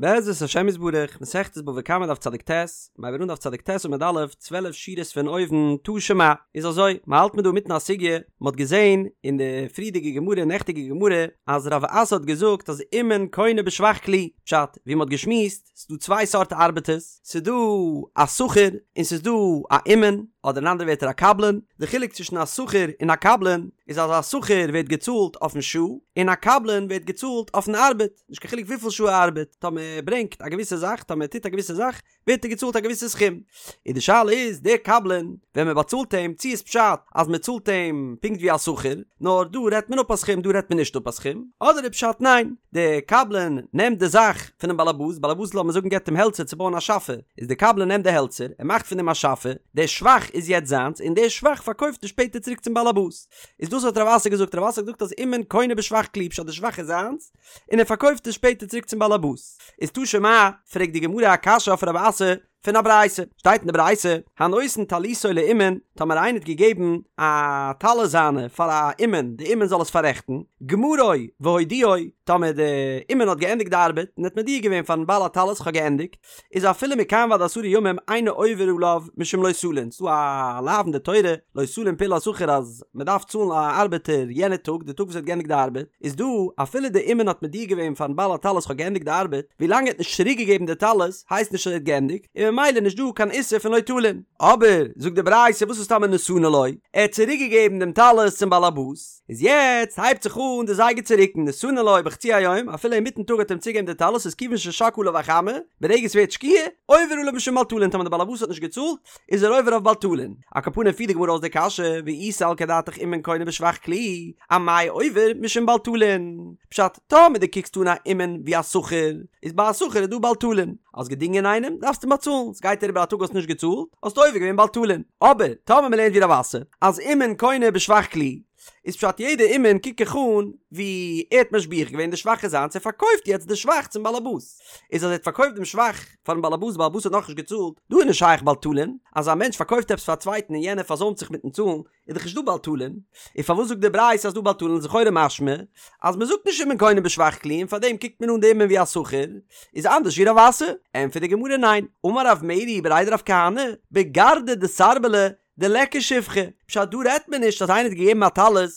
בעזרת השם יתברך, מסכת בבא קמא דף צדיק ט, מ'הייבט אן דף צדיק ט עמוד א', 12 שורות פון אויבן, תא שמע, איז אזוי, מ'האלט מיר דא אינמיטן א סוגיא, מ'האט געזען אין די פריערדיגע גמרא, נעכטיגע גמרא, אז רב אסי האט געזאגט אז אומן קונה בשבח כלי, פשט, ווי מ'האט געשמועסט, ס'איז דא צוויי סארט ארבעטערס, ס'איז דא א שכיר און ס'איז דא א אומן, אדער אין אנדערע ווערטער א קבלן, די חילוק צווישן א שכיר און א קבלן איז אז א שכיר ווערט געצאלט אויפן שעה, און א קבלן ווערט געצאלט אויפן ארבעט, נישט קיין חילוק וויפיל שעה ער ארבעט, טאמער ער ברענגט א געוויסע זאך, טאמער ער טוט א געוויסע זאך, ווערט ער געצאלט א געוויסע סכום. און די שאלה איז, דער קבלן, ווען מען באצאלט אים, צי איז פשט אז מען צאלט אים פונקט ווי א שכיר, נאר דא רעדט מען אפ א סכום דא רעדט מען נישט אפ א סכום, אדער איז פשט ניין, דער קבלן נעמט די זאך פונעם באלעבאס, באלעבאס לאמיר זאגן געבט אים העלצער צו בויען א שאפע, איז דער קבלן נעמט די העלצער, ער מאכט פון דעם א שאפע, דער שבח איז יעצט זיינס, און דער שבח פארקויפט ער שפעטער צוריק צום באלעבאס. איז דאס האט רב אסי געזאגט, רב אסי האט געזאגט אז אומן קונה בשבח כלי, פשט די שבח איז זיינס, און ער פארקויפט עס שפעטער צוריק צום באלעבאס. איז תא שמע, פרעגט די גמרא א קשיא אויף רב אסי פון א ברייתא, שטייט אין די ברייתא, הנותן טליתו לאומן, טאמער איינער האט געגעבן א טלית זיינע פאר א אומן, די אומן זאל עס פאררעכטן, גמרו והודיעו, טאמער די אומן האט געענדיגט די ארבעט און האט מודיע געווען פארן בעל הטלית איך האב געענדיגט, איז אפילו מכאן ועד עשרה ימים אינו עובר עליו משום לא תלין, ס'דא א לאו אין די תורה לא תלין פעולת שכיר אז מ'דארף צאלן א ארבעטער יענע טאג די טאג וואס ער האט געענדיגט די ארבעט, איז דא אפילו די אומן האט מודיע געווען פארן בעל הטלית כ'האב געענדיגט די ארבעט, ווילאנג ער האט נישט צוריק געגעבן די טלית הייסט נישט אז ער האט געענדיגט, און ממילא נישט דא קיין איסור פון לא תלין. אבער, זאגט די ברייתא וואס איז טאמער נתנו לו, ער האט צוריק געגעבן דעם טלית צום בעל הבית, איז יעצט הייבט זיך אן די זייגער צו רוקן, נתנו לו בחצי היום, אפילו אינמיטן טאג האט ער אים צוגעגעבן די טלית איז כיוון ששקעה עליו החמה, ברגע ס'ווערט שקיעה, עובר עליו משום בל תלין, טאמער די בעל הבית האט נישט געצאלט, איז ער עובר אויף בל תלין. על כל פנים פירט די גמרא אויס די קשיא, ואי סלקא דעתך אומן קונה בשבח כלי, אמאי עובר משום בל תלין? פשט, טאמער דו קוקסט אן א אומן ווי א שכיר, איז ביי א שכיר איז דא בל תלין, האסט געדינגען איינעם, דארפסטו אים באצאלן, ס'גייט אריבער א טאג האסט נישט געצאלט, האסטו עובר געווען בל תלין. אבער, טאמער מ'לערנט ווי רב אסי, אז אומן קונה בשבח כלי, איז פשט יעדע אומן קוק איך אן ווי ער האט משביח געווען די שבח איז זיינס ער פארקויפט יעצט די שבח צום באלעבאס איז אז ער האט פארקויפט דעם שבח פארן באלעבאס די באלעבאס האט נאכנישט געצאלט דא איז נישט שייך בל תלין אז א מענטש פארקויפט עפעס פאר א צווייטן און יענער פארזוימט זיך מיטן צאלן איז דאך נישט דא בל תלין און פארוואס זאגט די ברייתא אז דא בל תלין איז לכאורה משמע אז מען זאגט נישט אומן קונה בשבח כלי און פארדעם קוקט מען אן די אומן ווי א שכיר איז אנדערש ווי רב אסי ענטפערט די גמרא ניין אמר רב מרי בריה דרב כהנא בגרדא דסרבלא דליכא שבחא, פשט דא רעדט מען נישט אז איינער האט געגעבן א טלית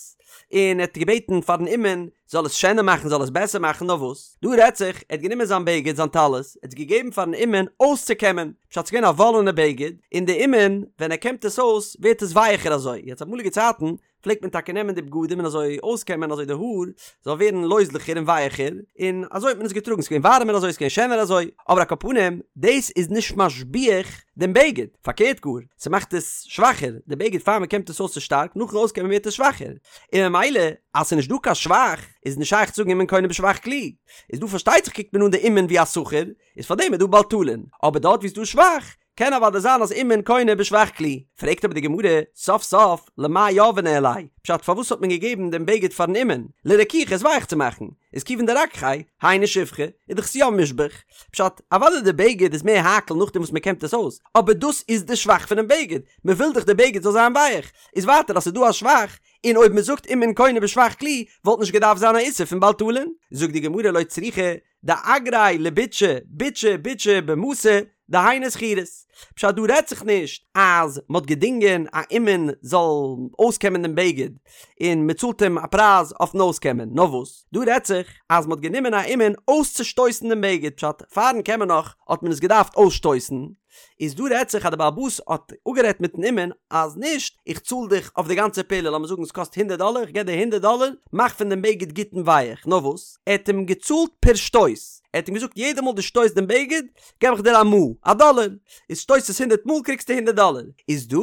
און ער האט געבעטן פארן אומן זאל עס שענער מאכן זאל עס בעסער מאכן נאר וואס דא רעדט זיך ער האט גענומען זיין בגד זיין טלית ער האט עס געגעבן פארן אומן אויסצוקעמען פשט ס'איז געווען א וואלענע בגד און די אומן ווען ער קעמט עס אויס ווערט עס ווייעכער אזוי יעצט אמאליגע צייטן פלעגט מען טאקע נעמען די בגדים און אזוי אויסקעמען אזוי די האר זאל ווערן לויזליכער און ווייעכער, און אזוי האט מען עס געטראגן, ס'איז געווען ווארעמער אזוי, ס'איז געווען שענער אזוי, אבער על כל פנים, דאס איז נישט משביח דעם בגד, פארקערט גאר, ס'מאכט עס שוואכער, די בגד פאר מ'קעמט עס אויס איז שטארק, נאכן אויסקעמען ווערט עס שוואכער, און ממילא אז ס'איז נישט דא קיין שבח, איז נישט שייך צו זאגן אומן קונה בשבח כלי, איז דא פארשטייט זיך קוקט מען אן די אומן ווי א שכיר, איז פארדעם איז דא בל תלין, אבער דארט ווי ס'איז דא שבח, קען אוודאי זיין אז אומן קונה בשבח כלי. פרעגט אבער די גמרא, סוף סוף, למאי יהביה ניהליה? פשט פארוואס האט מען געגעבן דעם בגד פארן אומן? לרכוכי עס ווייך צו מאכן, איז כיוון דרככיה, היינו שבחא, איז דאך עס יא משבח. פשט, אוודאי די בגד איז מער הייקל נאכדעם וואס מען קעמט עס אויס, אבער דאס איז די שבח פונעם בגד, מען וויל דאך די בגד זאל זיין ווייך, איז ווייטער אז ס'איז דא א שבח, און אויב מען זאגט אומן קונה בשבח כלי, וואלט נישט געדארפט זיין א איסור פון בל תלין. זאגט די גמרא לא צריכא, דאגריה לביטשי, ביטשא ביטשא במתא, דהיינו שכירות. פשט דא רעדט זיך נישט אז מ'האט געדינגען א אומן זאל אויסקעמען דעם בגד און מ'צאלט אים א פרייז אויפן אויסקעמען, נאר וואס דא רעדט זיך אז מ'האט גענומען א אומן אויסצושטויסן דעם בגד, פשט פארן קעמען נאך האט מען עס געדארפט אויסשטויסן, איז דא רעדט זיך אז די בעל הבית האט אפגערעדט מיטן אומן אז נישט איך צאל דיך אויף די גאנצע פעולה לאמיר זאגן עס קאסט הונדערט דאלער איך געב דיר הונדערט דאלער מאך פון דעם בגד גוט און ווייעך נאר וואס ער האט אים געצאלט פער שטויס ער האט אים געזאגט יעדע מאל דו שטויסט דעם בגד געב איך דיר א מעה א דאלער איז שטויסט עס הונדערט מאל קריגסטו הונדערט דאלער איז דא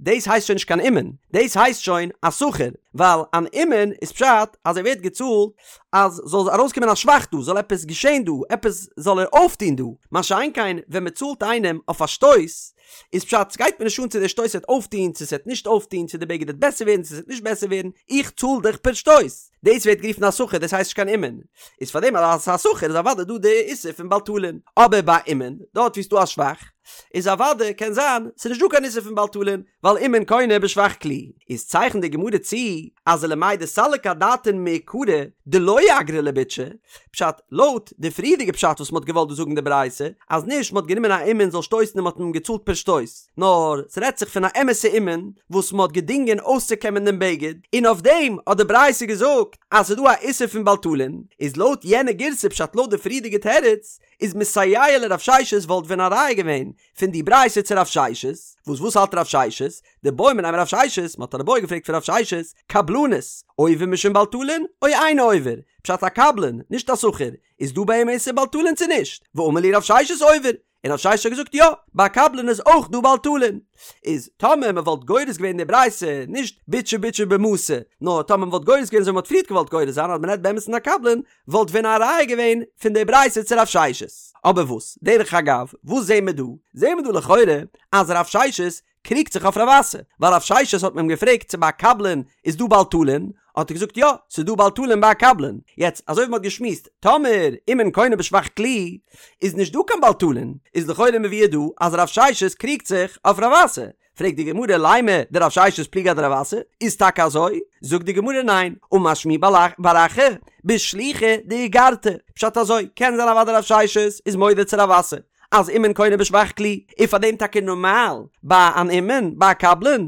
דאס הייסט שוין נישט קיין אומן, דאס הייסט שוין א שכיר, ווייל אן אומן איז פשט אז ער ווערט געצאלט אז זאל ארויסקומען א שבח דא, זאל עפעס געשען דא, עפעס זאל ער אויפטון דא, מה שאין כן ווען מען צאלט איינעם אויף א שטויס, איז פשט סגייט מיר נישט אן צו דער שטויס וועט אויפטון צו ס'וועט נישט אויפטון, צו די בגד וועט בעסער ווערן צו ס'וועט נישט בעסער ווערן, איך צאל דיך פער שטויס, דאס ווערט גערופן א שכיר, דאס הייסט נישט קיין אומן, איז פארדעם אז ס'איז א שכיר איז אוודאי דא די איסור פון בל תלין, אבער ביי אומן, דארט ווי ס'דא א שבח. איז אוודאי קען זיין ס'איז נישט דא קיין איסור פון בל תלין, ווייל אומן קונה בשבח כלי. איז צייכנט די גמרא צו אז ולמאי דסליק אדעתין מעיקרא דלא אגריה לביטשי, פשט, לויט די פריערדיגע פשט וואס מ'האט געוואלט דא זאגן די ברייתא, אז נישט מ'האט גענומען א אומן זאל שטויסן און מ'האט אים געצאלט פער שטויס, נאר ס'רעדט זיך פון א אמת'ע אומן וואס מ'האט געדינגען אויסצוקעמען דעם בגד, און אויף דעם האט די ברייתא געזאגט אז ס'איז דא א איסור פון בל תלין, איז לויט יענע גירסא פשט לויט די פריערדיגע תירוץ, איז מסייע לרב ששת וואלט ווען א ראיה געווען פון די ברייתא צו רב ששת, וואס וואס האלט רב ששת? דבעו מיניה מרב ששת, מ'האט אן איבעיא געפרעגט פון רב ששת, קבלנות, עובר משום בל תלין, או אינו עובר? פשט א קבלן, נישט א שכיר, איז דא ביי אים איסור בל תלין צו נישט? ואמר להו רב ששת עובר, און רב ששת האט געזאגט יא, ביי א קבלן איז אויך דא בל תלין. איז טאמער מ'וואלט גורס געווען די ברייתא, נישט ביטשי ביטשי במתא, נאר טאמער מ'וואלט גורס געווען אזוי ווי מ'האט פריערט געוואלט גורס זיין אז מ'רעדט באמת פון א קבלן, וואלט ווען א ראיה געווען פון די ברייתא צו רב ששת. אבער וואס, דרך אגב, וואס זעהן מיר דא? זעהן מיר דא לכאורה אז רב ששת קריגט זיך אויף רב אסי, ווייל רב ששת האט מען אים געפרעגט צו ביי א קבלן איז דא בל תלין, האט ער געזאגט יא, ס'איז דא בל תלין ביי א קבלן. יעצט, אזוי ווי מ'האט געשמועסט, טאמער אומן קונה בשבח כלי, איז נישט דא קיין בל תלין, איז לכאורה מבואר דא אז רב ששת קריגט זיך אויף רב אסי. פרעגט די גמרא לימא דרב ששת פליגא אדרב אסי, איז טאקע אזוי? זאגט די גמרא ניין, אמר שמואל בר אחא בשליחא דאיגרתא, פשט אזוי, קען זיין אוודאי רב ששת איז מודה צו רב אסי אז אומן קונה בשבח כלי, און פאר דעם טאקע נארמאל ביי אן אומן, ביי א קבלן,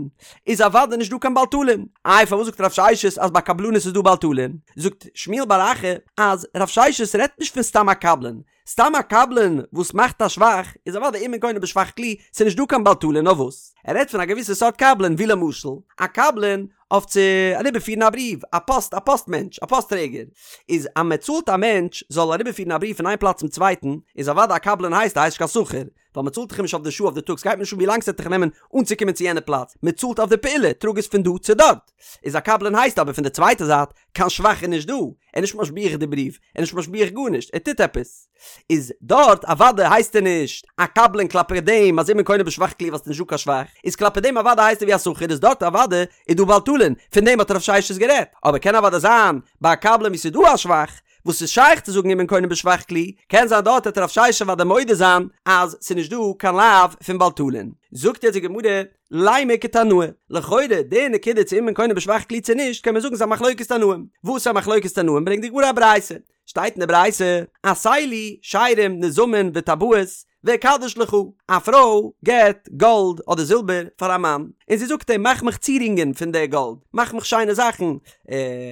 איז אוודאי נישט דא קיין בל תלין, איי פארוואס זאגט רב ששת אז ביי קבלנות איז דא בל תלין? זאגט שמואל בר אחא אז רב ששת רעדט נישט פון סתם א קבלן, סתם א קבלן וואס מאכט א שבח איז אוודאי אומן קונה בשבח כלי, ס'איז נישט דא קיין בל תלין נאר וואס? ער רעדט פון א געוויסע סארט קבלן ווי למשל א קבלן אויף צו אריבערפירן א בריוו, א פאסט א פאסט מענטש, א פאסט טרעגער, איז אז מען צאלט א מענטש זאל אריבערפירן א בריוו פון איין פלאץ צום צווייטן, איז אוודאי א קבלן הייסט ער הייסט נישט קיין שכיר, ווייל מען צאלט דאך אים נישט אויף די שעה אויף די טאג ס'גייט מיר נישט אן ווי לאנג ס'וועט דיך נעמען אנצוקומען צו יענע פלאץ, מען צאלט אויף די פעולה, טראג עס פון דא צו דארט. איז א קבלן הייסט אבער פון די צווייטע זייט קיין שבח איז נישט דא, ער איז נישט משביח די בריוו, ער איז נישט משביח גארנישט, ער טוט עפעס. איז דארט אוודאי הייסט ער נישט א קבלן כלפי דעם אז אומן קונה בשבח כלי ווייל ס'איז נישט דא קיין שבח, איז כלפי דעם אוודאי הייסט ער ווי א שכיר איז דארט אוודאי איז דא בל תלין, פון דעם האט רב ששת גערעדט, אבער קען אוודאי זיין ביי א קבלן ווי ס'איז דא א שבח, וואס איז שייך צו זאגן אומן קונה בשבח כלי, קען זיין דארט וועט רב ששת אוודאי מודה זיין אז ס'איז נישט דא קיין לאו פון בל תלין. זאגט יעצט די גמרא, לימא כתנאי, לכאורה די נקודה צו אומן קונה בשבח כלי צו נישט קען מען זאגן ס'איז א מחלוקת תנאים, וואס איז א מחלוקת תנאים ברענגט די גמרא א ברייתא, שטייט אין די ברייתא, עשה לי שרים נזמים וטבעות ואקדש לך, א פרוי געבט גאלד אדער זילבער פאר א מאן, און זי זאגט אים מאך מיך צירונגען פון די גאלד, מאך מיך שיינע זאכן,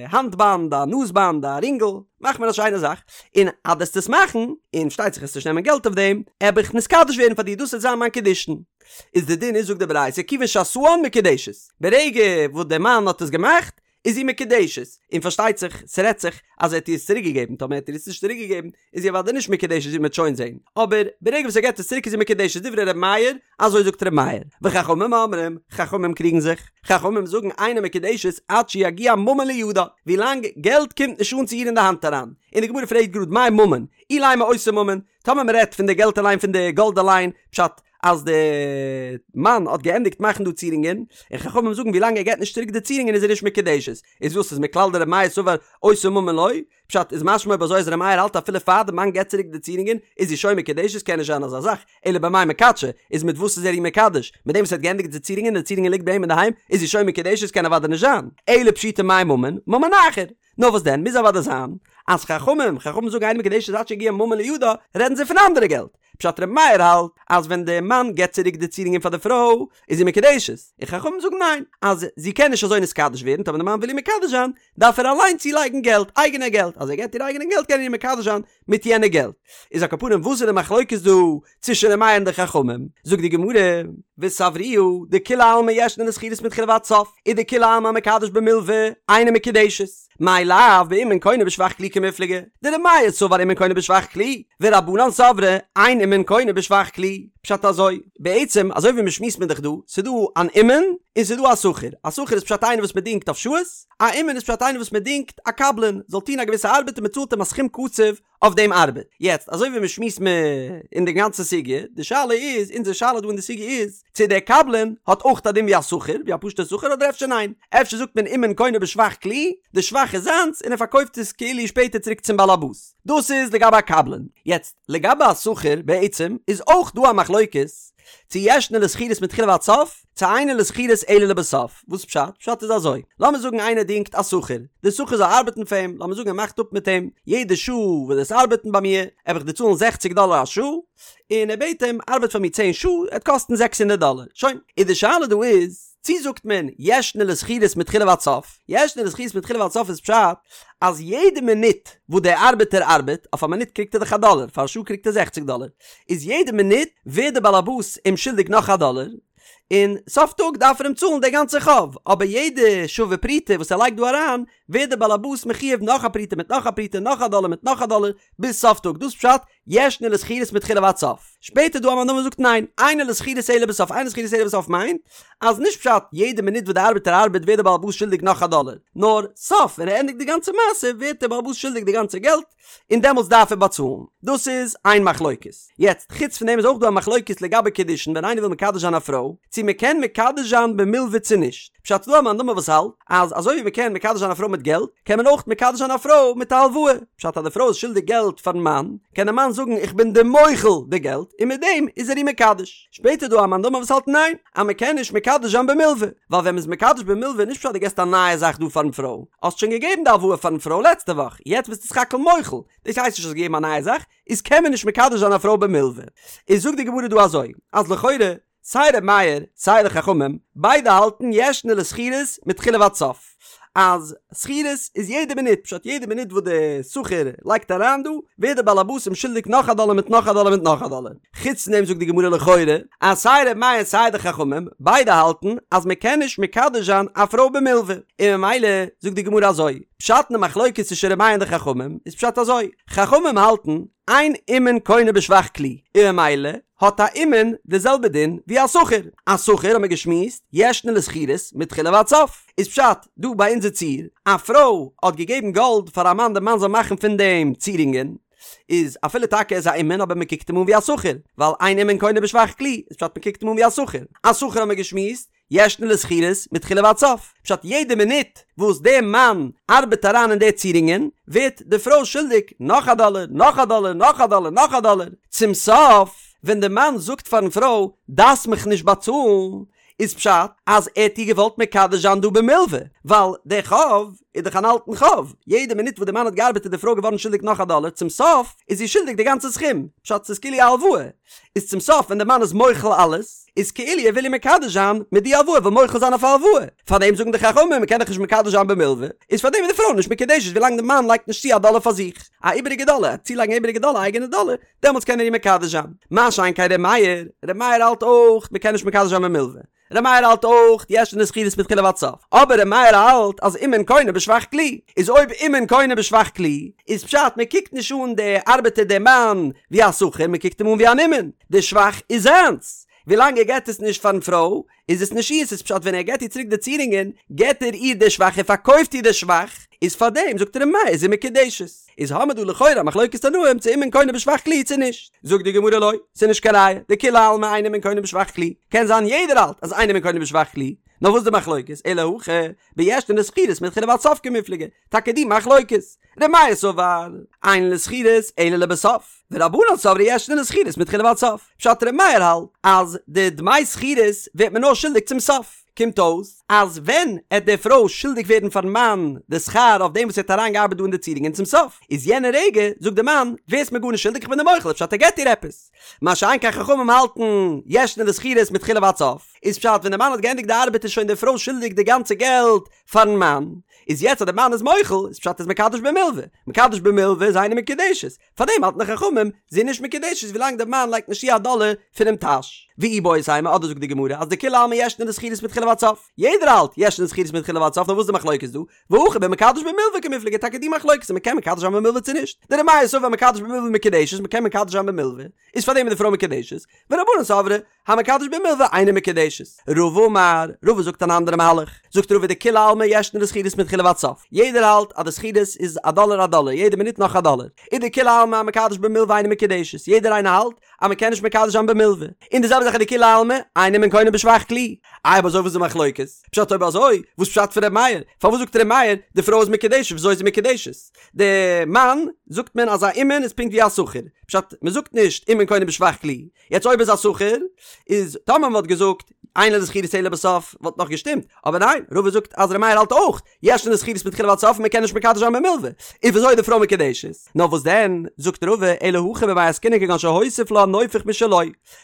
האנט באנד, א נאז באנד, א רינגל, מאך מיר א שיינע זאך, און אז דו וועסט עס מאכן, און פארשטייט זיך וועסט נישט נעמען געלט אויף דעם, עב איך נתקדש ווערן פאר דיר, דאס וועט זיין מיין קידושין. איז די דין איז זאגט די ברייתא כיוון שעשאן מקודשת, ברגע וואס דער מאן האט עס געמאכט איז זי מקודשת, און פארשטייט זיך ס'רעדט זיך אז ער האט איר עס צוריק געגעבן, טאמער האט ער עס נישט צוריק געגעבן איז זי אוודאי נישט מקודשת ווי מ'וועט שוין זען, אבער ברגע וואס ער געבט עס צוריק איז זי מקודשת דברי ר' מאיר, אזוי זאגט ר' מאיר, וחכמים אומרים, חכמים קריגן זיך, חכמים זאגן אינה מקודשת עד שיגיע ממון לידה, ווילאנג געלט קומט נישט אן צו איר אין די האנט אריין, און די גמרא פרעגט גראד מאי ממון, אילימא אותו ממון, טאמער מ'רעדט פון די געלט אליין פון די גאלד אליין, פשט אז די מאן האט געענדיגט מאכן דא צירונגען, און חכמים זאגן ווילאנג ער געט נישט צוריק די צירונגען איז ער נישט מקודשת, איז וואס איז מכלל דר' מאיר סבר אותו ממון לא? פשט איז משמע אויב אזוי אז ר' מאיר האלט אפילו פאר די מאן געט צוריק די צירונגען איז זי שוין מקודשת קען נישט זיין אזא זאך, אלא במאי מקדשא, איז מיט וואס איז ער איר מקדש? מיט דעם וואס ער האט געענדיגט די צירונגען און די צירונגען ליגט ביי אים אינדערהיים איז זי שוין מקודשת קען אוודאי נישט זיין, אלא פשיטא מאי ממון, ממון אחר. נאר וואס דען, מוז אוודאי זיין אז חכמים, חכמים זאגן אינה מקודשת עד שיגיע ממון לידה, רעדן זיי פון אנדערע געלט. פשט ר' מאיר האלט אז ווען די מאן געבט צוריק די צירונגען פאר די פרוי איז זי מקודשת, און חכמים זאגן ניין, אז זי קען נישט אזוי נתקדש ווערן, טאמער די מאן וויל איר מקדש זיין, דארף ער אליין צולייגן געלט, אייגענע געלט, אז ער געבט איר אייגענע געלט קען ער איר מקדש זיין מיט יענע געלט. איז על כל פנים וואס איז די מחלוקת דא צווישן ר' מאיר און די חכמים? זאגט די גמרא, וסברוה דכולי עלמא ישנה לשכירות מתחילה ועד סוף, ודכולי עלמא המקדש במלוה אינה מקודשת, מאי לאו באומן קונה בשבח כלי קמיפלגי, דר' מאיר סבר אומן קונה בשבח כלי, ורבנן סברי אין אומן קונה בשבח כלי, פשט אזוי, בעצם אזוי ווי מ'שמועסט מיר דאך דא, ס'דא אן אומן און ס'דא א שכיר, א שכיר איז פשט איינער וואס מ'דינגט אויף שעות, א אומן איז פשט איינער וואס מ'דינגט א קבלן זאל טון א געוויסע ארבעט און מ'צאלט אים א סכום קצוב אויף דעם ארבעט. יעצט, אזוי ווי מ'שמועסט מיר אין די גאנצע סוגיא, די שאלה איז, אונזער שאלה דא אין די סוגיא איז, צו דער קבלן האט אויך א דין ווי א שכיר, ווי א פשוט'ער שכיר, אדער אפשר ניין? אפשר זאגט מען אומן קונה בשבח כלי, די שבח איז זיינס און ער פארקויפט עס כאילו שפעטער צוריק צום בעל הבית. דאס איז לגבי א קבלן. יעצט, לגבי א שכיר בעצם איז אויך דא א מחלוקת צו ישנה לשכירות מתחילה ועד סוף, צו אינה לשכירות אלא לבסוף. וואס פשט? פשט איז אזוי, לאמיר זאגן איינער דינגט א שכיר, די שכיר זאל ארבעטן פאר אים, לאמיר זאגן ער מאכט אפ מיט אים, יעדע שעה וואס דו וועסט ארבעטן ביי מיר, וועל איך דיר צאלן זעכציג דאלער א שעה, און ער בעט אים, ארבעט פאר מיר צען שעה, עט קאסטן זעקס הונדערט דאלער. שוין. איז די שאלה דא איז, צי זאגט מען ישנה לשכירות מתחילה ועד סוף? ישנה לשכירות מתחילה ועד סוף איז פשט אז יעדע מינוט וואס דער ארבעטער ארבעט, אויף א מינוט קריגט ער דאך א דאלער, פאר א שעה קריגט ער זעכציג דאלער, איז יעדע מינוט ווערט דער באלעבאס אים שולדיג נאך א דאלער, און סוף טאג דארף ער אים צאלן די גאנצע חוב, אבער יעדע שווה פרוטה וואס ער לייגט דא אריין, ווערט דער באלעבאס מחויב נאך א פרוטה מיט נאך א פרוטה נאך א דאלער מיט נאך א דאלער, ביז סוף טאג, דאס פשט ישנה לשכירות מתחילה ועד סוף. שפעטער דא א מאן דאמר זאגט ניין, אינה לשכירות אלא בסוף, אינה לשכירות אלא בסוף מיינט אז נישט פשט יעדע מינוט וואס די ארבעטער ארבעט ווערט די בעל הבית שולדיג נאך א דאלער, נאר סוף ווען ער ענדיגט די גאנצע מעשה ווערט דער בעל הבית שולדיג די גאנצע געלט און דעמאלטס דארף ער באצאלן. דאס איז איין מחלוקת. יעצט חוץ פון דעם איז אויך דא א מחלוקת לגבי קידושין ווען איינער וויל מקדש זיין א פרוי, צו מען קען מקדש זיין במלוה צו נישט. פשט ס'דא א מאן דאמר וואס האלט אז אזוי ווי מען קען מקדש זיין א פרוי מיט געלט, קען מען אויך מקדש זיין א פרוי מיט א הלוואה. פשט אז די פרוי איז שולדיג געלט פארן מאן, קען דער מאן זאגן איך בין דיר מוחל די געלט, און מיט דעם איז ער איר מקדש. שפעטער דא א מאן דאמר וואס האלט ניין, אז מען קען נישט מקדש זיין במלוה, ווייל ווען מען איז מקדש במלוה נישט פשט דו געסט א נייע זאך דא פארן פרוי, האסט שוין געגעבן די הלוואה פארן פרוי לעצטע וואך, יעצט ביסטו סך הכל מוחל, דאס הייסט נישט האסט געגעבן א נייע זאך, איז קען מען נישט מקדש זיין א פרוי במלוה. איז זאגט די גמרא דא אזוי, אז לכאורה סיי ר' מאיר סיי די חכמים ביידע האלטן ישנה לשכירות מתחילה ועד סוף אז שכירות איז יעדע מינוט פשט יעדע מינוט וואס די שכיר לייגט אריין דא ווערט די בעל הבית אים שולדיג נאך א דאלער מיט נאך א דאלער מיט נאך א דאלער חוץ פון דעם זאגט די גמרא לכאורה אז סיי ר' מאיר סיי די חכמים ביידע האלטן אז מען קען נישט מקדש זיין א פרוי במלוה און ממילא זאגט די גמרא אזוי פשט אין די מחלוקת צווישן ר' מאיר און די חכמים איז פשט אזוי חכמים האלטן אין אומן קונה בשבח כלי און ממילא האט א אומן די זעלבע דין ווי א שכיר. א שכיר האט מען געשמועסט, ישנה לשכירות מתחילה ועד סוף. איז פשט דא ביי אונזער ציור, א פרוי האט געגעבן גאלד פאר א מאן די מאן זאל מאכן פון דעם צירונגען, איז אפילו טאקע ער איז א אומן אבער מען קוקט אים אן ווי א שכיר, ווייל אין אומן קונה בשבח כלי, איז פשט מען קוקט אים אן ווי א שכיר. א שכיר האט מען געשמועסט, ישנה לשכירות מתחילה ועד סוף, פשט יעדע מינוט וואס דער מאן ארבעט אריין אין די צירונגען ווערט די פרוי שולדיג נאך א דאלער, נאך א דאלער, נאך א דאלער, נאך א דאלער, צום סוף ווען די מאן זאגט פארן פרוי דארפסט מיך נישט באצאלן, איז פשט אז ער האט איר געוואלט מקדש זיין דא במלוה, ווייל דער חוב איז דאך אן אלטן חוב, יעדע מינוט וואס די מאן האט געארבעט איז די פרוי געווארן שולדיג נאך א דאלער, צום סוף איז זי שולדיג די גאנצע סכום, פשט ס'איז כאילו א הלוואה. איז צום סוף ווען די מאן איז מוחל אלעס, איז כאילו ער וויל איר מקדש זיין מיט די הלוואה, וויל מוחל זיין אויף א הלוואה, פארדעם זאגן די חכמים מען קען דאך נישט מקדש זיין במלווה, איז פארדעם איז די פרוי נישט מקודשת ווילאנג די מאן לייגט נישט צו א דאלער פאר זיך, א איבעריגע דאלער, צולייגן א איבעריגע דאלער א אייגענע דאלער, דעמאלטס קען ער איר מקדש זיין. מה שאין כן ר' מאיר, ר' מאיר האלט אויך מען קען נישט מקדש זיין במלווה, ר' מאיר האלט אויך ישנה לשכירות מתחילה ועד סוף, אבער ר' מאיר האלט אז אומן קונה בשבח כלי, איז אויב אומן קונה בשבח כלי, איז פשט מען קוקט נישט אן די ארבעטער די מאן ווי א שכיר מען קוקט אים אן ווי אן אומן, די שבח איז זיינס, ווילאנג ער געט עס נישט פארן פרוי איז עס נישט אירס, איז פשט ווען ער געט איר צוריק די צירונגען געט ער איר די שבח ער פארקויפט איר די שבח, איז פארדעם זאגט ר' מאיר איז זי מקודשת. איז האמער דא לכאורה א מחלוקת תנאים צו אומן קונה בשבח כלי צו נישט. זאגט די גמרא לא, ס'איז נישט קיין ראיה, דכולי עלמא אין אומן קונה בשבח כלי, קען זיין יעדער האלט אז אין אומן קונה בשבח כלי, נאר וואס די מחלוקת, אלא הכא, בישנה לשכירות מתחילה ועד סוף קמיפלגי, טאקע די מחלוקת, ר' מאיר סבר, אין לשכירות אלא לבסוף, ורבנן סברי ישנה לשכירות מתחילה ועד סוף, פשט ר' מאיר האלט אז די דמי שכירות ווערט מען נאר שולדיג צום סוף. קומט אויס אז ווען עט די פרוי שולדיג ווערן פארן מאן די שכר אויף דעם וואס ער האט אריין געארבעט דא אין די צירונגען צום סוף איז יענע רגע זאגט די מאן ווערסט מיר גארנישט שולדיג איך בין דיר מוחל פשט ער געט איר עפעס מה שאין כן חכמים האלטן ישנה לשכירות מתחילה ועד סוף איז פשט ווען די מאן האט געענדיגט די ארבעט איז שוין די פרוי שולדיג די גאנצע געלט פארן מאן איז יעצט אז די מאן איז מוחל איז פשט איז מקדש במלוה מקדש במלוה איז אינה מקודשת פארדעם האלטן די חכמים, זי איז נישט מקודשת ווילאנג דער מאן לייגט נישט צו א דאלער פונעם טאש. ואיבעית אימא, אדער זאגט די גמרא אז דכולי עלמא ישנה לשכירות מתחילה ועד סוף. יעדער האלט, ישנה לשכירות מתחילה ועד סוף, נאר וואס איז די מחלוקת דא? והכא במקדש במלוה קמיפלגי, טאקע די מחלוקת צו מ'קען מקדש זיין במלוה צו נישט. דר' מאיר סבר מקדש במלוה מקודשת, מ'קען מקדש זיין במלוה, איז פארדעם איז די פרוי מקודשת, ורבנן סברי, המקדש במלוה אינה מקודשת. רבא אמר, רבא זאגט אן אנדערע מהלך, זאגט רבא דכולי עלמא ישנה לשכירות מתחילה. מתחילה ועד סוף, יעדער האלט אז די שכירות איז א דאלער א דאלער, יעדע מינוט נאך א דאלער, און דכולי עלמא המקדש במלוה אינה מקודשת, יעדער איינער האלט אז מען קען נישט מקדש זיין במלוה, און די זעלבע זאך איז דכולי עלמא אין אומן קונה בשבח כלי, איי אויב אזוי וואס איז די מחלוקת? פשט אויב אזוי וואס פשט פון ר' מאיר? פארוואס זאגט ר' מאיר די פרוי איז מקודשת וויאזוי איז זי מקודשת? די מאן זאגט מען אז א אומן איז פונקט ווי א שכיר, פשט מען זאגט נישט אומן קונה בשבח כלי, יעצט אויב איז א שכיר איז טאמער מען וואלט געזאגט אין לה לשכירות אלא בסוף וואלט נאך געשטימט, אבער ניין רבא זאגט אז ר' מאיר האלט אויך ישנה לשכירות מתחילה ועד סוף און מען קען נישט מקדש זיין במלוה, איז וויאזוי איז די פרוי מקודשת? נאר וואס דען זאגט רבא אלא הכא במאי עסקינן כגון שהוסיף לה נופך משלו,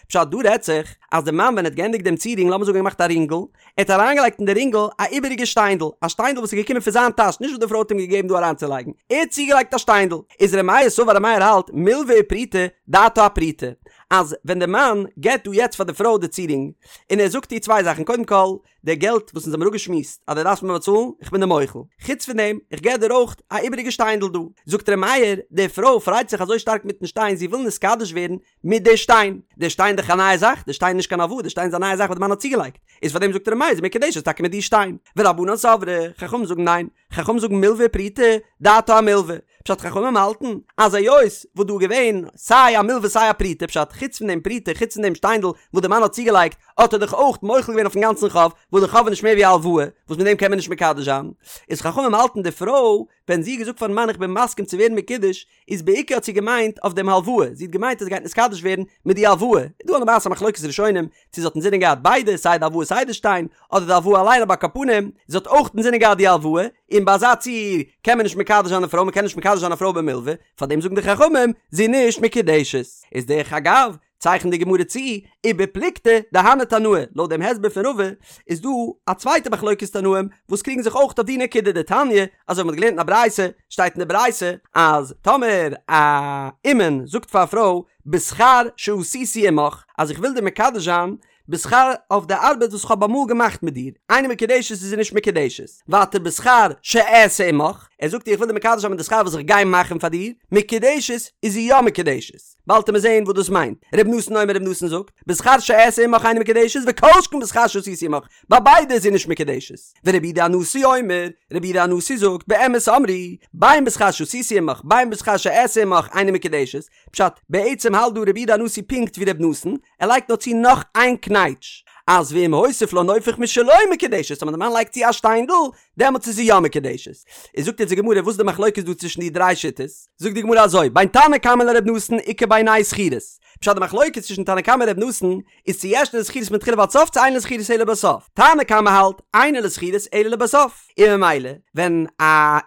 פשט דא רעדט זיך אז די מאן ווען ער האט געענדיגט דעם צירונג לאמיר זאגן ער האט געמאכט א רינגל, ער האט אריינגעלייגט אין די רינגל א איבעריגע שטיינדל, א שטיינדל וואס איז געקומען פון זיין טאש נישט וואס די פרוי האט אים געגעבן דא אריינצולייגן, ער האט צוגעלייגט א שטיינדל, איז ר' מאיר סבר ר' מאיר האלט מלוה ופרוטה דעתה אפרוטה, אז ווען די מאן געבט דא יעצט פאר די פרוי די צירונג און ער זאגט איר צוויי זאכן קודם כל די געלט וואס אונז האבן אפגעשמועסט אז דו דארפסט מיר באצאלן, איך בין דיר מוחל. חוץ פון דעם, איך געב דיר אויך א איבעריגע שטיינדל דא. זאגט ר' מאיר, די פרוי פרייט זיך אזוי שטארק מיטן שטיין, זי וויל נתקדש ווערן מיט די שטיין. די שטיין איז דאך א נייע זאך, די שטיין איז נישט קיין הלוואה, די שטיין איז א נייע זאך וואס די מאן האט צוגעלייגט. איז פאר דעם זאגט ר' מאיר, זי מקודשת טאקע מיט די שטיין. ורבנן סברי, חכמים זאגן ניין. חכמים זאגן מלוה ופרוטה, דעתה אמלוה. פשט חכמים האלטן אז היות וואס דא איז געווען סיי א מלוה סיי א פרוטה פשט חוץ פון דעם פרוטה חוץ פון דעם שטיינדל וואס די מאן האט צוגעלייגט האט ער דאך אויך מוחל געווען אויפן גאנצן חוב וואס די חוב איז נישט מער ווי א הלוואה וואס מיט דעם קען מען נישט מקדש זיין איז חכמים האלטן די פרוי ווען זי האט געזאגט פארן מאן איך בין מסכים צו ווערן מקודש איז בעיקר האט זי געמיינט אויף דעם הלוואה, זי האט געמיינט אז זי גייט נתקדש ווערן מיט די הלוואה, איז דא א למעשה א מחלוקת ראשונים צו זי האט אינזינען געהאט ביידע סיי די הלוואה סיי די שטיין, אדער די הלוואה אליין אבער על כל פנים זי האט אויך אינזינען געהאט די הלוואה, און ביי אזא ציור קען מען נישט מקדש זיין א פרוי, מען קען נישט מקדש זיין א פרוי במלווה, פארדעם זאגן די חכמים זי איז נישט מקודשת. איז דרך אגב, צייכנט די גמרא צו, ובפלוגתא דהני תנאי, לויט דעם הסבר פון רבא, איז דא א צווייטע מחלוקת תנאים וואס קריגן זיך אויך אויף די נקודה דתניא, אזוי ווי מ'האט געלערנט אין א ברייתא, שטייט אין די ברייתא אז טאמער א אומן זאגט פאר א פרוי בשכר שעשיתי עמך, אז איך וויל דיר מקדש זיין בשכר אויף די ארבעט וואס כ'האב אמאל געמאכט מיט דיר, אינה מקודשת איז זי נישט מקודשת, ווייטער בשכר שאעשה עמך, ער זאגט איר איך וויל דיר מקדש זיין מיט די שכר וואס איך גיי מאכן פאר דיר, מקודשת איז זי יא מקודשת. באלד וועט מען זעהן וואס דאס מיינט. ר' נתן אומר ר' נתן זאגט, בשכר שאעשה עמך אינה מקודשת וכל שכן בשכר שעשיתי עמך, ביי ביידע איז זי נישט מקודשת. ורבי יהודה הנשיא אומר, רבי יהודה הנשיא זאגט, באמת אמרו, בין בשכר שעשיתי עמך בין בשכר שאעשה עמך אינה מקודשת, פשט, בעצם האלט דא רבי יהודה הנשיא פונקט ווי ר' נתן, ער לייגט נאר צו נאך איין קנייטש, אז ואם הוסיף לה נופך משלו מקודשת, אז ווען די מאן לייגט צו א שטיינדל, דעמאלטס איז זי יא מקודשת. איז זאגט יעצט די גמרא וואס איז די מחלוקת דא צווישן די דריי שיטות? זאגט די גמרא אזוי, בין תנא קמא לר' נתן איכא בינייהו שכירות. פשט די מחלוקת צווישן תנא קמא און ר' נתן איז צו ישנה לשכירות מתחילה ועד סוף צו אינה לשכירות אלא לבסוף. תנא קמא האלט אינה לשכירות אלא לבסוף. און ממילא ווען א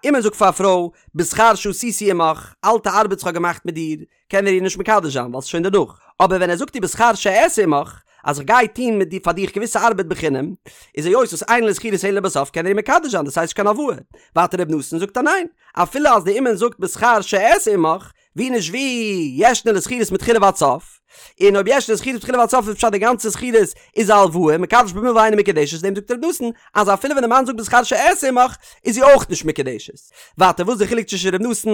אומן זאגט פאר א פרוי בשכר שעשיתי עמך, אלטע ארבעט וואס כ'האב געמאכט מיט דיר, קען ער איר נישט מקדש זיין ווייל ס'איז שוין דערנאך, אבער ווען ער זאגט איר בשכר שאעשה עמך, אז איך גיי טון מיט דיר פאר דיך געוויסע ארבעט בחינם, איז היות וואס אינה לשכירות אלא לבסוף קען ער איר מקדש זיין דאס הייסט נישט קיין הלוואה. ווייטער ר' נתן זאגט אז ניין, אפילו אז די אומן זאגט בשכר שאעשה עמך, ווי נישט ווי ישנה לשכירות מתחילה ועד סוף, און אויב ישנה לשכירות מתחילה ועד סוף איז פשט די גאנצע שכירות איז א הלוואה, מקדש במלוה אינה מקודשת, דעם זאגט ר' נתן אז אפילו ווען די מאן זאגט בשכר שאעשה עמך איז זי אויך נישט מקודשת. ווייטער וואס איז די חילוק צווישן ר' נתן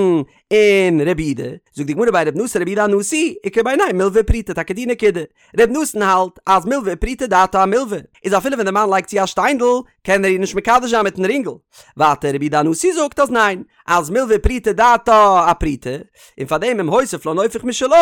און רבי יהודה, זאגט די גמרא בין רבי נתן לרבי יהודה הנשיא, איכא בינייהו מלוה ופרוטה, טאקע די נקודה. רבי נתן האלט אז מלוה ופרוטה דעתה אמלוה, איז אפילו ווען די מאן לייגט צו א שטיינדל, קען ער איר נישט מקדש זיין מיטן רינגל. ווייטער רבי יהודה הנשיא זאגט אז ניין, אז מלוה ופרוטה דעתה אפרוטה, און פארדעם אם הוסיף לה נופך משלו,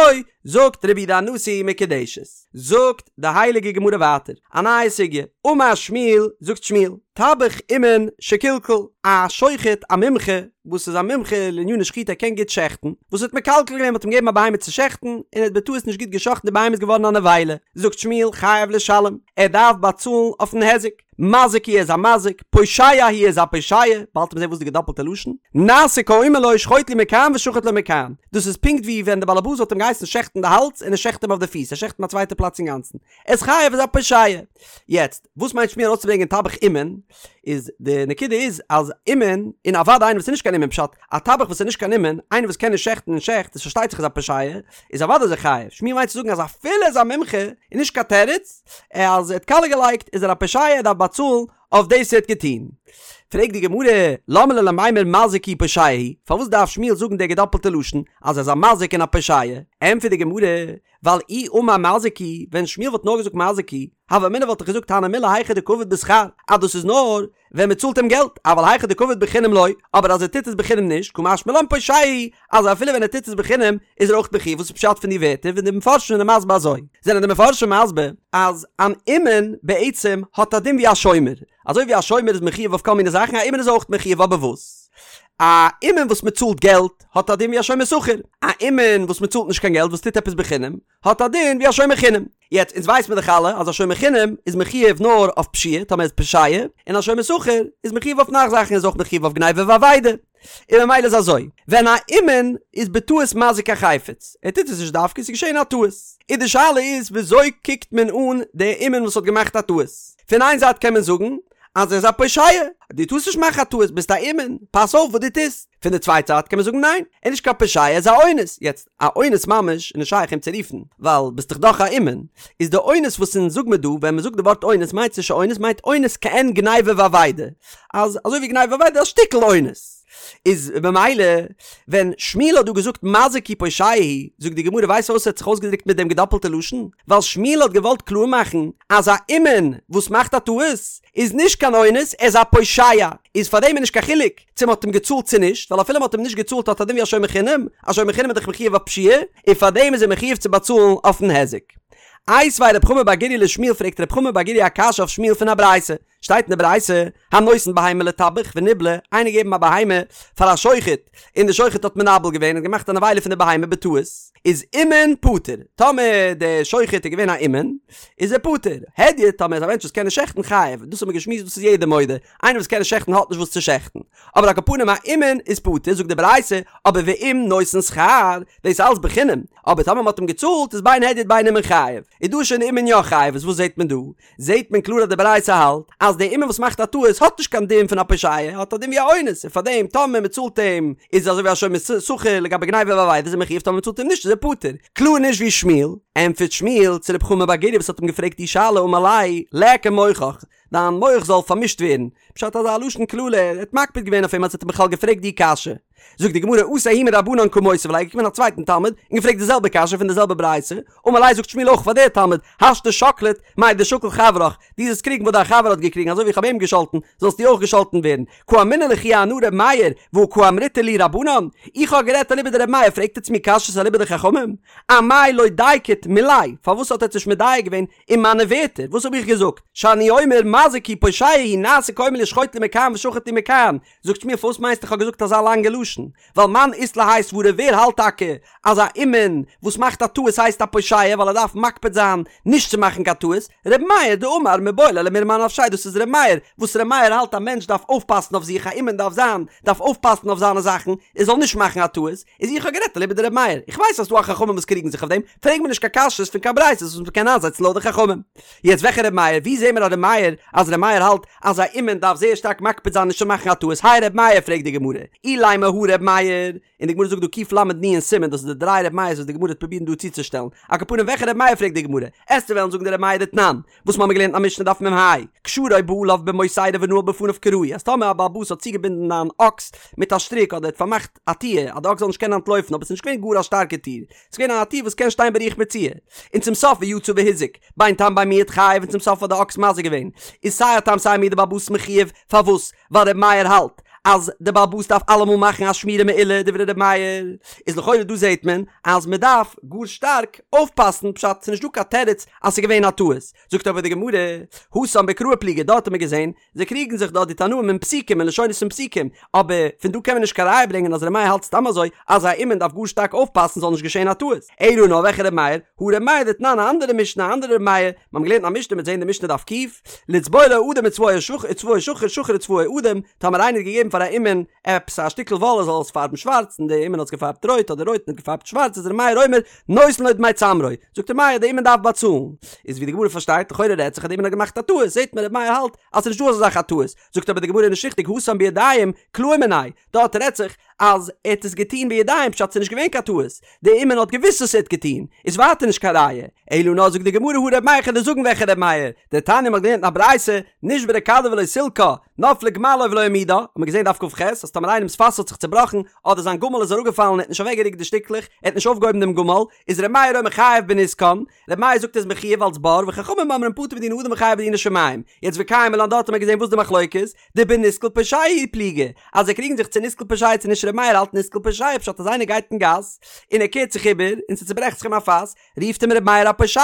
זאגט רבי יהודה הנשיא מקודשת. זאגט די הייליגע גמרא ווייטער, א נייע סוגיא, אמר שמואל, זאגט שמואל, טבח אומן שקלקל, א שוחט א מומחה, וואס איז א מומחה לעניני שחיטה ער קען גוט שעכטן, וואס האט מקלקל געווען מ'האט אים געגעבן א בהמה צו שעכטן, און ער האט בטעות נישט גוט געשאכטן די בהמה איז געווארן א נבילה, זאגט שמואל חייב לשלם, ער דארף באצאלן אויפן היזק, מזיק הוא איז א מזיק, פושע הוא איז א פושע, באלד וועט מען זען וואס די געדאפלטע לשון, נעשה כאומר לו שחוט לי מכאן ושחט לו מכאן, דאס איז פונקט ווי ווען די באלעבאס וואלט אים געהייסן שעכטן די האלז און ער שעכט אים אויף די פיס, ער שעכט אים א צווייטע פלאץ אינגאנצן, ער איז חייב איז א פושע. יעצט, וואס מיינט שמואל ארויסצוברענגען טבח אומן? איז די נקודה איז אז אומן, און אוודאי איינער וואס איז נישט קיין אומן פשט, א טבח וואס איז נישט קיין אומן, איינער וואס קען נישט שעכטן און שעכט, איז פארשטייט זיך איז א פושע, איז אוודאי איז ער חייב. שמואל מיינט צו זאגן אז אפילו ער איז א מומחה, איז נישט קיין תירוץ, אז ער האט קאליע געלייגט איז ער א פושע ער דארף באצאלן אויף דאס ער האט געטון. פרעגט די גמרא, למה ליה למימר מזיק הוא פושע הוא, פארוואס דארף שמואל זאגן די געדאפלטע לשון אז ער איז א מזיק און א פושע? ענטפערט די גמרא, ווייל אי אמר מזיק הוא, ווען שמואל וואלט נאר געזאגט מזיק הוא, הוה אמינא וואלט איך געזאגט הני מילי היכא דקא עביד בשכר, אז דאס איז נאר. ווען מען צאלט אים געלט, אבל היכא דקעביד בחינם לא, אבער אז ער טוט עס בחינם נישט, קא משמע לן פושע הוא, אז אפילו ווען ער טוט עס בחינם איז ער אויך מחויב, וואס איז פשט פון די ווערטער ווען די מפרשים זענען מסביר אזוי? זענען די מפרשים מסביר אז אן אומן בעצם האט א דין ווי א שומר, אזוי ווי א שומר איז מחויב אויף כל מיני זאכן, א אומן איז אויך מחויב, אבער וואס? א אומן וואס מען צאלט געלט האט א דין ווי א שומר שכר, א אומן וואס מען צאלט נישט קיין געלט וואס טוט עפעס בחינם האט א דין ווי א שומר חינם. יעצט אונז ווייס מיר דאך אלע אז א שומר חינם איז מחויב נאר אויף פשיעה טאמער איז פושע, און א שומר שכר איז מחויב אויף נאך זאכן איז אויך מחויב אויף גניבה ואבידה. און ממילא איז אזוי, ווען א אומן איז בטעות מזיק א חפץ, ער טוט עס נישט דווקא, עס איז געשען א טעות, און די שאלה איז וויאזוי קוקט מען אן די אומן וואס האט געמאכט א טעות? פון איין זייט קען מען זאגן אז ער איז א פושע, דו טארסט נישט מאכן א טעות, ביסט א אומן, פאס אויף וואס דו טוסט. פון די צווייטע זייט קען מען זאגן ניין, ער איז נישט קיין פושע, ער איז א אונס. יעצט, א אונס ממש איז נישט שייך אים צו רופן, ווייל ביסט דאך דאך א אומן. איז די אונס וואס אונז זאג מיר דא, ווען מען זאגט די ווארט אונס מיינט עס נישט אונס, מיינט אונס כעין גניבה ואבידה. אז אזוי ווי גניבה ואבידה א שטיקל אונס. איז במילא ווען שמואל האט דא געזאגט מזיק הוא פושע הוא, זאגט די גמרא ווייסט פארוואס ער האט זיך אויסגעדרוקט מיט דעם געדאפלטע לשון? ווייל שמואל האט געוואלט קלאר מאכן אז א אומן וואס מאכט א טעות איז נישט קיין אונס, ער איז א פושע, איז פאר דעם איז נישט קיין חילוק צו מ'האט אים געצאלט צו נישט, ווייל אפילו מ'האט אים נישט געצאלט האט א דין ווי א שומר חינם, א שומר חינם איז דאך מחויב אויף פשיעה, און פאר דעם איז ער מחויב צו באצאלן אויפן היזק. איתיביה רב חמא בר גוריא לשמואל פרעגט רב חמא בר גוריא א קשיא אויף שמואל פון א ברייתא, שטייט אין די ברייתא, הנותן בהמה לטבח וניבלה, איינער געגעבן א בהמה פאר א שוחט, און די שוחט האט מנבל געווען, האט געמאכט א נבילה פון די בהמה בטעות, איז אומן פטור, טאמער די שוחט איז געווען א אומן, איז ער פטור, הדיוט, טאמער איז א מענטש וואס קען נישט שעכטן חייב, דאס האט מען געשמועסט דאס איז יעדער מודה, איינער וואס קען נישט שעכטן האט נישט וואס צו שעכטן, אבער על כל פנים א אומן איז פטור, זאגט די ברייתא, אבער ואם נותן שכר, דאס איז אלץ בחינם, אבער טאמער מען האט אים געצאלט איז בין הדיוט בין אומן חייב, איז דא שוין אומן יא חייב, איז וואס זעט מען דא? זעהט מען קלאר אז די ברייתא האלט אז די אומן וואס מאכט א טעות האט נישט קיין דין פון א פושע, האט א דין ווי א אונס, און פארדעם טאמער מען צאלט אים איז אזוי ווי א שומר שכר לגבי גניבה ואבידה איז ער מחויב טאמער מען צאלט אים נישט איז ער פטור. קלאר נישט ווי שמואל. ענטפערט שמואל צו רב חמא בר גוריא וואס האט אים געפרעגט די שאלה אמר ליה ליכא מוחך, דיין מח זאל פארמישט ווערן, פשט אזא לשון קללה, ער האט מקפיד געווען אויף אים אז ער האט אים בכלל געפרעגט די קשיא. זאגט די גמרא אתא ההוא מרבנן קא מותיב ליה געקומען א צווייטן תלמיד און געפרעגט די זעלבע קשיא פון די זעלבע ברייתא, אמר ליה זאגט שמואל אויך פאר דער תלמיד, השתא שקלת מאי דשקל חברך, דו זאלסט קריגן וואס דיין חבר האט געקריגן אזוי ווי איך האב אים געשאלטן זאלסטו אויך געשאלטן ווערן, קאמינא לכו אנא ר' מאיר והא קאמריתו לי רבנן, איך האב גערעדט אליבא דר' מאיר פרעגט עטץ מיר קשיות אליבא דחכמים? אמאי לא דייקת מילאי, פארוואס האט עטץ נישט מדייק געווען אין מיינע ווערטער, וואס האב איך געזאגט? שאני אומר מזיק הוא פושע הוא נעשה כאומר לי שחוט לי מכאן ושחט לי מכאן, זאגט שמואל פארוואס מיינסטו איך האב געזאגט אזא לאנגע לשון? ווייל מאן אית ליה האי סברא ווער האלט טאקע אז א אומן וואס מאכט א טעות הייסט א פושע ווייל ער דארף מקפיד זיין נישט צו מאכן קיין טעות? ר' מאיר דאמר מיבעי ליה למירמי אנפשיה דאס איז ר' מאיר וואס ר' מאיר האלט א מענטש דארף אויפפאסן אויף זיך א אומן דארף זיין דארף אויפפאסן אויף זיינע זאכן ער זאל נישט מאכן א טעות איז איך האב גערעדט אליבא דר' מאיר איך ווייס אז ס'דא א חכמים וואס קריגן זיך אויף דעם פרעג מיר נישט קיין קשיות פון קיין ברייתות וואס מ'קען איינזעצן לויט די חכמים. יעצט וועלכע ר' מאיר? ווי זעהן מיר א ר' מאיר אז ר' מאיר האלט אז א אומן דארף זייער שטארק מקפיד זיין נישט צו מאכן א טעות הי ר' מאיר פרעגט די גמרא אילימא הא ר' מאיר און די גמרא זאגט דא קל"נ סימן דאס איז די דריי ר' מאיר'ס וואס די גמרא וועט פרובירן דא צוצושטעלן על כל פנים וועלכע ר' מאיר פרעגט די גמרא עסטו וועלן זאגן די ר' מאיר דתנן וואס מ'האמיר געלערנט אין א משנה דף מ"ה קשרו בעליו במוסרה ונעל בפניו כראוי אז טאמער א בעל הבית האט צוגעבינדן אן אקס מיט א שטריק אדער האט פארמאכט א טיר אז די אקס זאל נישט קענען אנטלויפן אבער ס'איז נישט געווען גאר א שטארקע טיר ס'איז געווען א טיר וואס קען שטיין ברוח מצויה און צום סוף ויצא והזיק, בין תם בין מועד חייב און צום סוף האט די אקס מזיק געווען, איז סיי א תם סיי א מועד די בעל הבית מחויב, פארוואס? ווייל ר' מאיר האלט אז די בעל הבית דארף אלעמאל מאכן א שמירה מעולה דברי ר' מאיר, איז לכאורה דא זעהט מען אז מען דארף גאר שטארק אויפפאסן פשט ס'איז נישט דא קיין תירוץ אז ס'איז געווען א טעות, זאגט אבער די גמרא, התם בקראי פליגי דארט האט מען געזעהן זיי קריגן זיך דארט די תנאים אין פסוקים אין לשונות פון פסוקים, אבער פון דא קען מען נישט קיין ראיה ברענגען אז ר' מאיר האלט סתם אזוי אז א אומן דארף גאר שטארק אויפפאסן ס'זאל נישט געשען א טעות. אלא נאר וועלכע ר' מאיר? הא ר' מאיר דתנן א אנדערע משנה א אנדערע ר' מאיר, מיר האבן געלערנט א משנה מ'וועט זעהן די משנה דף ק', לצבוע לו אדום וצבעו שחור שחור וצבעו אדום, טאמער איינער האט געגעבן פאר א אומן עפעס א שטיקל וואל ער זאל עס פארבן שווארץ און די אומן האט עס געפארבט רויט אדער רויט און האט געפארבט שווארץ איז ר' מאיר אומר נותן לו דמי צמרו, זאגט ר' מאיר די אומן דארף באצאלן. איז ווי די גמרא פארשטייט לכאורה רעדט זיך אז די אומן האט געמאכט א טעות זעהט מען ר' מאיר האלט אז ס'נישט דא אזא זאך א טעות, זאגט אבער די גמרא נישט ריכטיג התם בידיים קלאו מיניה, דארט רעדט זיך. אז ער האט עס געטון בידיים פשט ס'איז נישט געווען קיין טעות, די אומן האט געוואוסט וואס ער האט געטון, איז ווייטער נישט קיין ראיה, אלא נאר זאגט די גמרא הא ר' מאיר כ'וועל דיר זאגן וועלכע ר' מאיר, דתניא מ'האט געלערנט אין א ברייתא, נשברה כדו ולא סילקה, נפלה גמלו ולא העמידה, האט מען געזען דף כ"ח אז טאמער איינעמס פאס האט זיך צובראכן, אדער זיין גמל איז אראפגעפאלן און ער האט נישט אוועקגערוקט די שטיקלעך, ער האט נישט אויפגעהויבן דעם גמל, איז ר' מאיר אומר חייב בנזקן, ר' מאיר זאגט ער איז מחויב אלס בור, וחכמים אומרים פטור בדיני אדם וחייב בדיני שמים. יעצט וקיימא לן דארט האט מען געזען וואס די מחלוקת, דבנסקל פושע פליגי, אז זיי קריגן זיך צו נסקל פושע צו נישט ר' מאיר האלט נסקל פושע פשט אז איינער גייט אין גאס און ער קערט זיך איבער און ס'צוברעכט זיך אים א פאס, רופט אים ר' מאיר א פושע.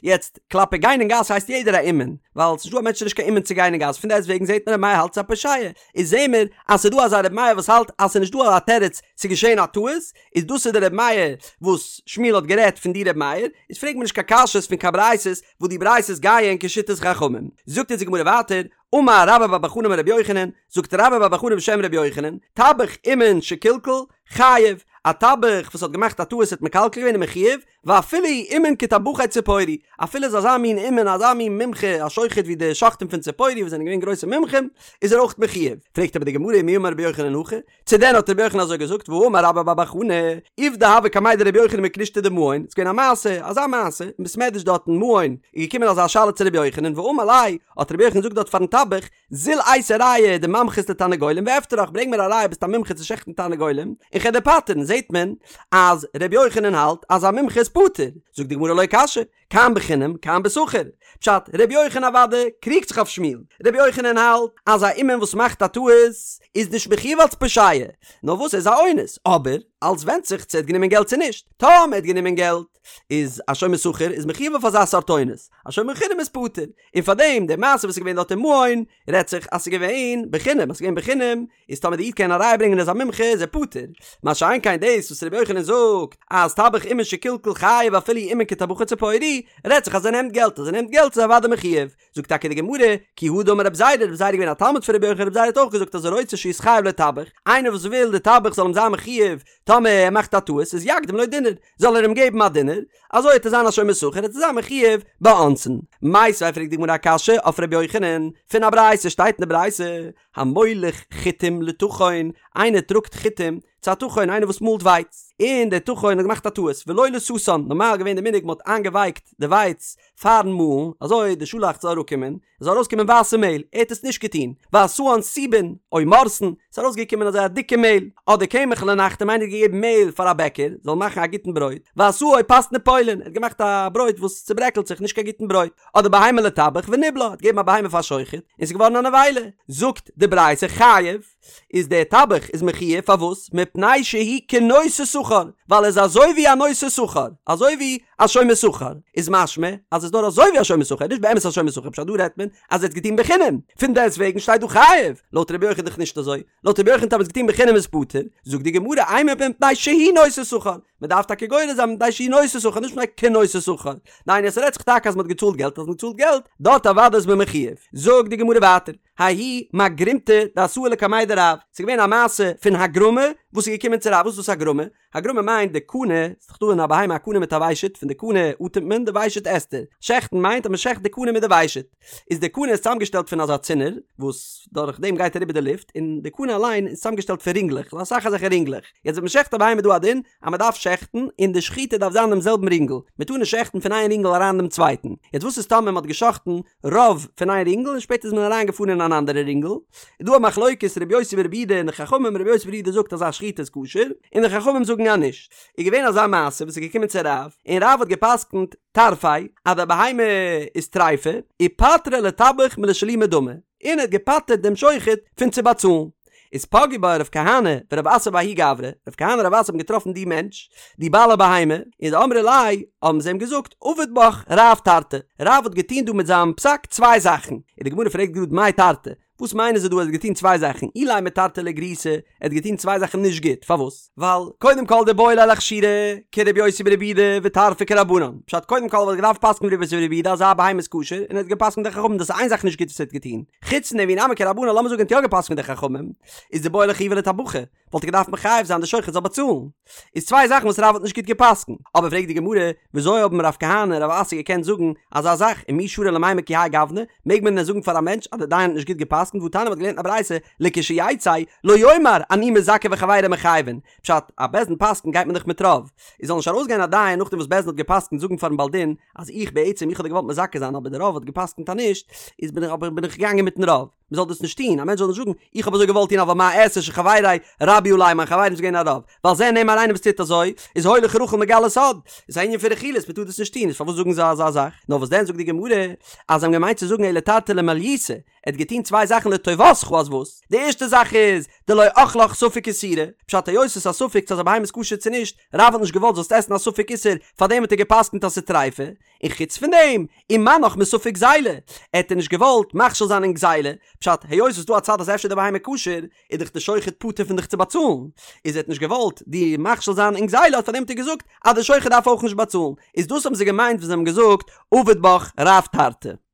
יעצט, כלפי גיין אין גאס הייסט יעדער א אומן, ווייל ס'נישט דא א מענטש איז נישט קיין אומן צו גיין אין גאס, פון דעסט וועגן זעט מען ר' מאיר האלט ס'איז א פושע, איז זעהן מיר אז ס'איז דא אזא ר' מאיר וואס האלט אז ס'איז נישט דא א תירוץ ס'איז געשעהן א טעות, איז דאס איז די ר' מאיר וואס שמואל האט גערעדט פון די ר' מאיר, איז פרעג מיר נישט קיין קשיות פון קיין ברייתות וואס די ברייתות גייען כשיטת חכמים. זאגט אונז די גמרא ווייטער, אמר רבה בר בר חנה אמר רבי יוחנן, זאגט רבה בר בר חנה בשם רבי יוחנן, טבח אומן שקלקל, חייב, א טבח וואס האט געמאכט א טעות האט מקלקל געווען איז מחויב, ואפילו אומן כטבחי ציפורי, אפילו איז אזא מין אומן אזא מין מומחה א שוחט ווי די שוחטים פון ציפורי וואס זענען געווען גרויסע מומחים, איז ער אויך מחויב. פרעגט אבער די גמרא מי אמר רבי יוחנן הכי, צו דען האט רבי יוחנן אזוי געזאגט והאמר רבה בר בר חנה, עובדא הוה קמיה דרבי יוחנן בכנישתא דמעון, ס'איז געווען א מעשה, אזא מעשה, אין בית מדרש דארט אין מעון, איז געקומען אזא שאלה צו רבי יוחנן ואמר ליה, האט רבי יוחנן געזאגט דארט פארן טבח, זיל אייתי ראיה דממחית לתרנגולים ואפטרך, ברענג מיר א ראיה ביסט א מומחה צו שעכטן תרנגולים, און כ'על דיר פטר'ן, זעט מען אז רבי יוחנן האלט אז א מומחה איז פטור, זאגט די גמרא לא קשיא, כאן בחינם כאן בשכר. פשט, רבי יוחנן אוודאי קריגט זיך אויף שמואל. רבי יוחנן האלט אז א אומן וואס מאכט א טעות איז נישט מחויב אלס פושע, נאר וואס ער איז א אונס, אבער אלס ווענדט זיך צו ער האט גענומען געלט צו נישט. טאמער ער האט גענומען געלט איז א שומר שכר איז מחויב אויף אזא סארט אונס, א שומר חינם איז פטור. און פארדעם די מעשה וואס איז געווען דארט אין מעון רעדט זיך אז ס'איז געווען בחינם, אז ס'איז געווען בחינם איז טאמער די איד קען א ראיה ברענגען ער איז א מומחה איז ער פטור, מה שאין כן דאס וואס רבי יוחנן זאגט אז טבח אומן שקלקל חייב אפילו אומן כטבחי ציפורי, רעדט זיך אז ער נעמט געלט, אז ער נעמט געלט איז ער אוודאי מחויב. זאגט טאקע די גמרא, כי הא דאמר רב זירא, רב זירא איז געווען א תלמיד פון רבי יוחנן, רב זירא האט אויך געזאגט אז הרוצה שיתחייב לו טבח, איינער וואס וויל די טבח זאל אים זיין מחויב טאמער ער מאכט א טעות איז יקדים לו דינר, זאל ער אים געבן א דינר, אזוי וועט ער זיין א שומר שכר וועט ער זיין מחויב באונסין. מיתיבי פרעגט די גמרא א קשיא אויף רבי יוחנן, פון א ברייתא שטייט אין די ברייתא, המוליך חיטים לטחון, איינער טראגט חיטים צו א טחון, איינער וואס מאלט ווייץ, און דער טחון האט געמאכט א טעות, ולא לתתן, נארמאל איז געווען די מנהג מען האט איינגעווייקט די ווייץ פארן מאלן, אזוי די שאלאכץ זאל אראפקומען, עס זאל ארויסקומען ווייסע מעהל, ער האט עס נישט געטון, ועשאן סובין, או מורסין, עס איז ארויסגעקומען אזוי א דיקע מעהל, אדער קמח לנחתום, איינער האט געגעבן מעהל פאר א בעקער, זאל מאכן א גוטן ברויט, ועשאו פת נפולין, ער האט געמאכט א ברויט וואס צוברעקלט זיך, נישט קיין גוטן ברויט. אדער בהמה לטבח וניבלה, האט געגעבן א בהמה פאר שוחט, און ס'איז געווארן א נבילה. זאגט די ברייתא חייב, איז דער טבח איז מחויב, פארוואס? מפני שהוא כנושא שכר, ווייל ער איז אזוי ווי א נושא שכר, אזוי ווי א שומר שכר, איז משמע אז עס איז נאר אזוי ווי א שומר שכר, נישט באמת א שומר שכר, פשט דא רעדט מען אז ער האט געטון בחינם, פון דעסט וועגן שטייט דא חייב, לויט רבי יוחנן דאך נישט אזוי, לויט רבי יוחנן טאמער האט געטון בחינם איז פטור, זאגט די גמרא אימא מפני שהוא נושא שכר, מען דארף טאקע גורס זיין מפני שהוא נושא שכר נישט מפני כנושא שכר, דהיינו עס רעדט זיך טאקע אז מען האט געצאלט געלט אז מען האט געצאלט געלט דארט אוודאי איז מען מחויב, זאגט די גמרא ווייטער, ההיא מגרומתא דאתאי לקמיה דרב, ס'איז געווען א מעשה פון הגרמה וואס איז געקומען צו רב, וואס איז דאס הגרמה? הגרמה מיינט די קנה, ס'איז דאך דא אין א בהמה א קנה מיט א ושט, פון די קנה אטעמט מען, די ושט עסט ער, שעכטן מיינט אז מען שעכט די קנה מיט די ושט. איז די קנה איז צוזאמגעשטעלט פון אזא צינור וואס דורך דעם גייט אריבער די לופט, און די קנה אליין איז צוזאמגעשטעלט פון רינגלעך, אסאך אזעלכע רינגלעך. יעצט ווען מען שעכט א בהמה איז דא א דין אז מען דארף שעכטן און די שחיטה דארף זיין דעם זעלבן רינגל, מען טאר נישט שעכטן פון איין רינגל אריין דעם צווייטן. יעצט וואס איז טאמער מען האט געשאכטן רוב פון איין רינגל און שפעטער איז מען אריין געפארן אין אן אנדערע רינגל? איז דא א מחלוקת ר' יוסי בר' יהודה און די חכמים, ר' יוסי בר' יהודה זאגט אז א שחיטה איז כשר, און די חכמים זאגן אז נישט. איז געווען אזא מעשה וואס איז געקומען צו רב, און רב האט גע'פסק'נט, טרפה, אז די בהמה איז טריפה, ופטריה לטבח מלשלומי דמי, און ער האט געפטר'ט דעם שוחט פון צו באצאלן. איז פגעו ביה רב כהנא ורב אסי בההוא גברא, רב כהנא און רב אסי האבן געטראפן די מענטש, די בעל הבהמה, און דאמרי ליה, האבן זיי אים געזאגט, עביד בך רב תרתי, רב האט געטון דא מיט זיין פסק צוויי זאכן, און די גמרא פרעגט גראד מאי תרתי, וואס מיינען זיי דא ער האט געטון צוויי זאכן, אילימא תרתי לגריעותא, ער האט געטון צוויי זאכן נישט גוט, פארוואס? ווייל קודם כל דאיבעי ליה לאכשורי כרבי יוסי ברבי יהודה וטרפה כרבנן, פשט קודם כל וואלט געדארפט פסק'ן ווי רבי יוסי ברבי יהודה אז א בהמה איז כשר, און ער האט געפסק'נט די חכמים דאס איז איין זאך נישט גוט וואס ער האט געטון, חוץ פון דעם ואי נמי כרבנן לאמיר זאגן ער האט יא געפסק'נט די חכמים, איז דאיבעי ליה לחיובא לטבחא. וואלט ער געדארפט מחייב זיין די שוחט זאל באצאלן. איז צוויי זאכן וואס רב האט נישט גוט געפסקנט. אבער פרעגט די גמרא, וויאזוי האבן רב כהנא און רב אסי געקענט זאגן אזא זאך, ומי שרי למימר כי האי גוונא, מעג מען דען זאגן פאר א מענטש אז דער דיין האט נישט גוט געפסקנט, והתניא מ'האט געלערנט אין א ברייתא, לכשיצא, לא יאמר אני מזכה וחבירי מחייבין, פשט, א בית דין פסקנט גייט מען דאך מיט רוב, איז זאל נישט ארויסגיין א דיין נאכדעם וואס בית דין האט געפסקנט זאגן פארן בעל דין אז איך בעצם איך האב דיר געוואלט מזכה זיין אבער די רוב האט געפסקנט אז נישט, איז בין איך אבער בין איך געגאנגען מיטן רוב. מען זאל דאס נישט טון, א מענטש זאל נישט זאגן, איך האב אזוי געוואלט טון אבל מה אעשה שחבירי רבו עלי, מיין חברים איז געווען א רוב, ועל זה נאמר איינער וואס טוט אזוי, איז הולך רכיל מגלה סוד, איז א ענין פון רכילות, מען טאר דאס נישט טון, איז פארוואס זאגן זיי אזא זאך? נאר וואס דען זאגט די גמרא, אז זיי האבן געמיינט צו זאגן אלא תרתי למעליותא, ער האט געטון צוויי זאכן לטובתך אז וואס? די ערשטע זאך איז, דלא אכלך ספק איסורא, פשט היות עס איז א ספק צו אז א בהמה איז כשר צו נישט, רב האט נישט געוואלט זאלסט עסן א ספק איסור, פארדעם האט ער גע'פסק'נט אז ס'איז טריפה, און חוץ פון דעם, ומנעך מספק גזילה, ער האט דיר נישט געוואלט מכשיל זיין אין גזילה, פשט, היות ס'איז דא א צד אז אפשר די בהמה כשר, איז דאך די שוחט פטור פון דיך צו באצאלן, איז ער האט נישט געוואלט דיר מכשיל זיין אין גזילה האט פארדעם האט ער געזאגט אז די שוחט דארף אויך נישט באצאלן, איז דאס האבן זיי געמיינט ווען זיי האבן געזאגט עביד בך רב תרתי.